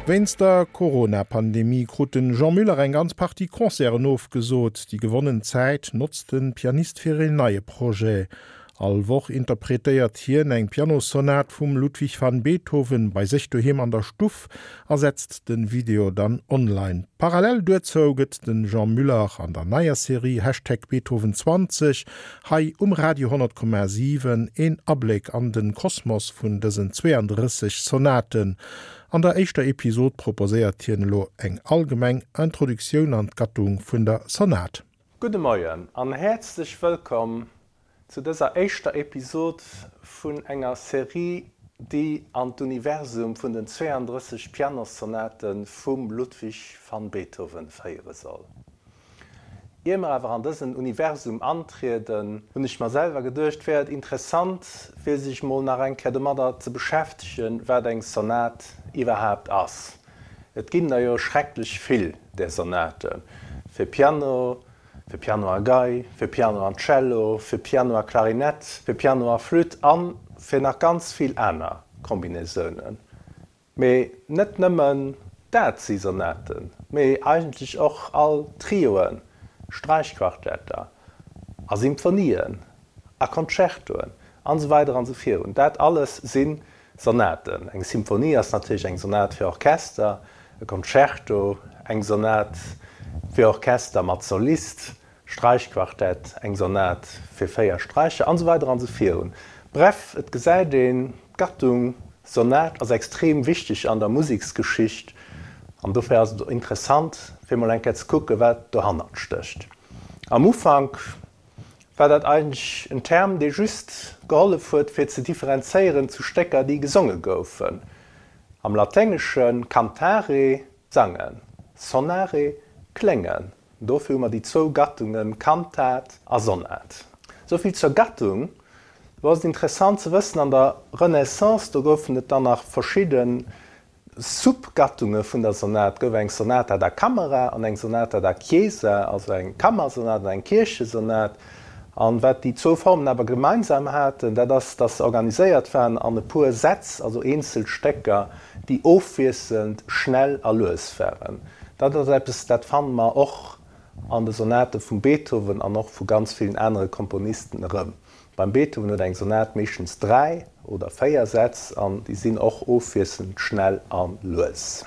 Wéinst der Corona-Pandemie krut de Jean Muller eng ganz Partie Concerten ofgesot. Déi gewonnen Zäit notzt de Pianist fir een neie Projet. All Woch interpretéiert hien eng Pianossonat vum Ludwig van Beethoven bei sech doheem an der Stuff a setzt de Video dann online. Parallel duerzou gëtt de Jean Muller an der neier Serie Hashtag Beethoven 20 hei um Radio 100,7 een Abléck an de Kosmos vun dësen 32 Sonaten. An der éischter Episod proposéiert hien elo eng allgemeng Introduktioun an d'Gattung vun der Sonat. Gudde Moien an häerzlech wëllkomm zu dëser éischter Episod vun enger Serie, déi an d'Universum vun den 32 Pianossonate vum Ludwig van Beethoven féiere soll. Ier mer awer an dësen Universum antrieden, hunn ech mer selwer geduecht, wär et interessant, fir sech mol nach eng Kéier domadder ze beschäftegen, wat eng Sonat iwwerhaapt ass. Et ginn der jo schrecklech vill där Sonaten, fir Piano, fir Piano a Gei, fir Piano an Cello, fir Piano a Klarinett, fir Piano a Flütt a fir nach ganz vill aner Kombinaisounen. Mee net nëmmen dat si Sonaten, mee eigentlech och all Trioen, Sträichquartetter a Symphonien a Concertoen an esou weider an esou virun. Dat alles si Sonaten. Eng Symphonie ass natierlech eng Sonat fir Orchester, e Concerto eng Sonat fir Orchester mat Solist, Sträichquartett eng Sonat fir 4 Sträicher an esou weider an esou virun. Bref, et gesäit een, d'Gattung Sonat ass extrem wichteg an der Museksgeschicht an dofir ass et interessant fir mol eng Kéier ze kucken, wat dohannert stécht. Am Ufank war dat eigentlech en Term, dee just gehollef huet, fir ze differenzéieren zu Stécker, déi gesonge goufen. Am Laténgesche cantare, sangen, sonare, kléngen. Dofir hu mer déi zwou Gattunge Kantat a Sonat. Souvill zur Gattung. Lo ass et interessant ze wëssen, an der Renaissance, do goufen et dann nach verschidde Sub-Gattunge vun der Sonat. Et gouf eng Sonata da camera an eng Sonata da chiesa, also eng Kammersonat an eng Kierchesonat. An wat déi zwou Formen awer gemeinsam haten, dat ass, dass se organiséiert waren an e puer Sätz, also eenzel Stécker, déi ofwiesselnd schnell a lues waren. Dat ass eppes, dat fanne mer och an de Sonate vum Beethoven an och vu ganz villen anere Komponisten erëm. Beim Beethoven huet eng Sonat meeschtens 3 oder 4 Sätz an déi sinn och ofwiesselnd schnell a lues.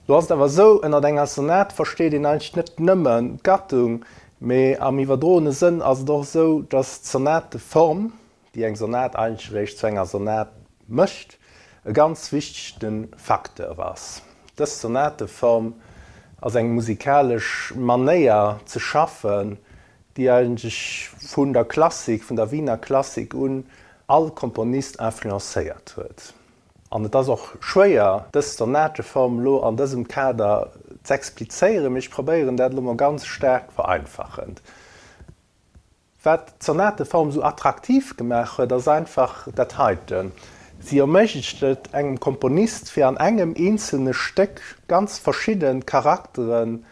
Lo ass et awer esou, ënnert enger Sonat versteet een eigentlech net nëmmen d'Gattung, mee am iwwerdroene Sënn ass et och esou, datt d'Sonateform, déi eng Sonat eigentlech eréischt zu enger Sonat mécht, e ganz wichtege Facteur ass. Dës Sonateform ass eng musikalesch Manéier ze schaffen, déi eigentlech vun der Klassik, vun der Wiener Klassik un, all Komponist influencéiert huet. An et ass och schwéier, dës Sonateform elo an dësem Kader z'explizéieren, mee ech probéieren dat elo mol ganz staark vereinfachend. Wat d'Sonateform esou attraktiv gemaach huet, ass einfach dat heiten, Si erméiglecht et engem Komponist, fir an engem eenzelne Stéck ganz verschidde Charakteren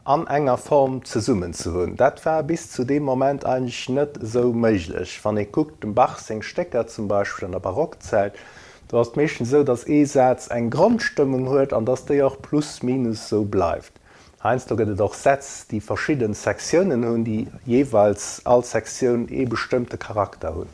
an enger Form zesummen ze hunn. Dat war bis zu deem Moment eigentlech net esou méiglech. Wann ee kuckt, dem Bach seng Stécker zum Beispill an der Barockzäit, do ass et meeschtens esou, datt ee Saz eng Grondstëmmung huet an datt déi och plus minus esou bleift. Heiansdo gëtt et och Sätz, déi verschidde Sektiounen hunn, déi jeeweils all Sektioun ee bestëmmte Charakter hunn.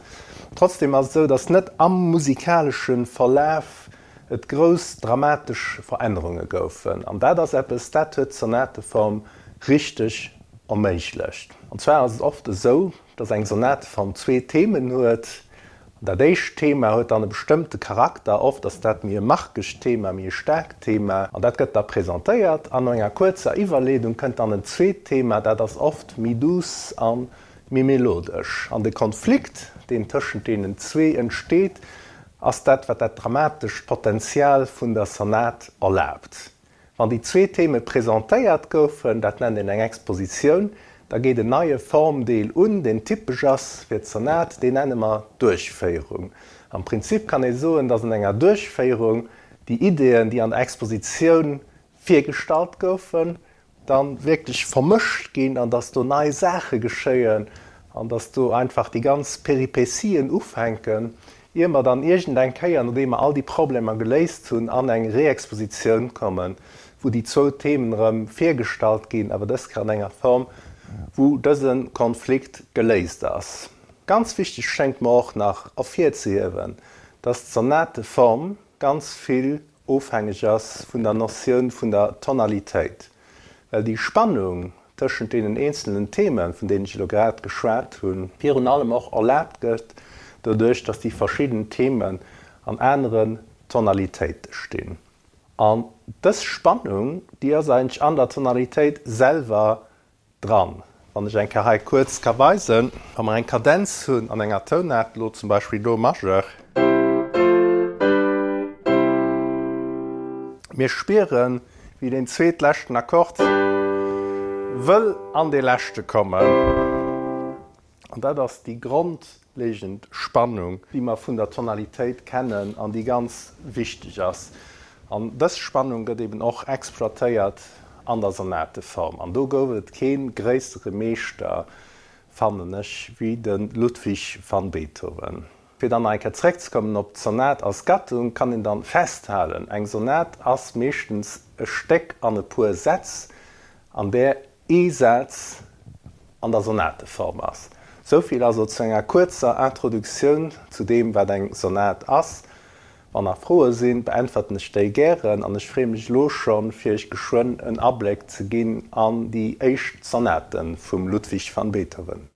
Trotzdem ass et esou, datt net am musikalesche Verlaf et grouss dramatesch Verännerunge goufen. An dat ass eppes, dat huet d'Sonateform richteg erméiglecht. An zwar ass et oft esou, dass eng Sonateform zwee Themen huet. An dat éischt Thema huet dann e bestëmmte Charakter, oft ass dat méi e markegt Thema, méi e staarkt Thema, an dat gëtt da presentéiert. An no enger kuerzer Iwwerleedung kënnt dann en zweet Thema, dat ass oft méi duuss a méi melodesch. An de Konflikt, deen tëschent deenen zwee entsteet, ass dat, wat dat dramatescht Potenzial vun der Sonat erlaabt. Wann déi zwee Theme presentéiert goufen, dat nennt een eng Expositioun, da geet en neie Formdeel un, deen typesch ass fir d'Sonat, deen nenne mer Duerchféierung. Am Prinzip kann ee soen, datt an enger Duerchféierung déi Ideeën, déi an der Expositioun virgestallt goufen, dann wierklech vermëscht ginn an dass do nei Saache geschéien an dass do einfach déi ganz Peripetien ufänken. Ier mer dann iergendeng Kéier, nodeem mer all déi Problemer geléist hunn, an eng Reexpositioun kommen, wou déi zwou Themen erëm virgestallt ginn, awer dës Kéier an enger Form, wou dëse Konflikt geléist ass. Ganz wichteg schéngt mer och nach ervirzehiewen, dass d'Sonateform ganz vill ofhängeg ass vun der Notioun vun der Tonalitéit, well déi Spannung tëschent deenen eenzelnen Themen, vun deenen ech elo grad geschwat hunn, virun allem och erlaabt gëtt doduerch, dass déi verschidden Themen an aneren Tonalitéite stinn. An dës Spannung, déi ass eigentlech an der Tonalitéit selwer dran. Wann ech eng Kéier hei kuerz ka weisen, wa mer eng Kadenz hunn an enger Tounaart, elo zum Beispill Do Majeur, mir spieren, wéi deen zweetleschten Akkord wëll an dee leschte kommen. An dat ass déi grondlegend Spannung, déi mer vun der Tonalitéit kennen an déi ganz wichteg ass. An dës Spannung gëtt eben och exploitéiert an der Sonateform. An do gouf et kee gréissere Meeschter, fannen ech, wéi de Ludwig van Beethoven. Fir dann nach eng Kéier zeréckzekommen op d'Sonat als Gattung, kann een dann festhalen, eng Sonat ass meeschtens e Stéck an e puer Sätz, an där ee Saz an der Sonateform ass. Souvill also zu enger kuerzer Introduktioun zu deem, wat eng Sonat ass. Wann nach Froe sinn, beäntwerten ech déi gären an ech freeë mech elo schonn, fir iech geschwënn en Abléck ze ginn an déi éischt Sonate vum Ludwig van Beethoven.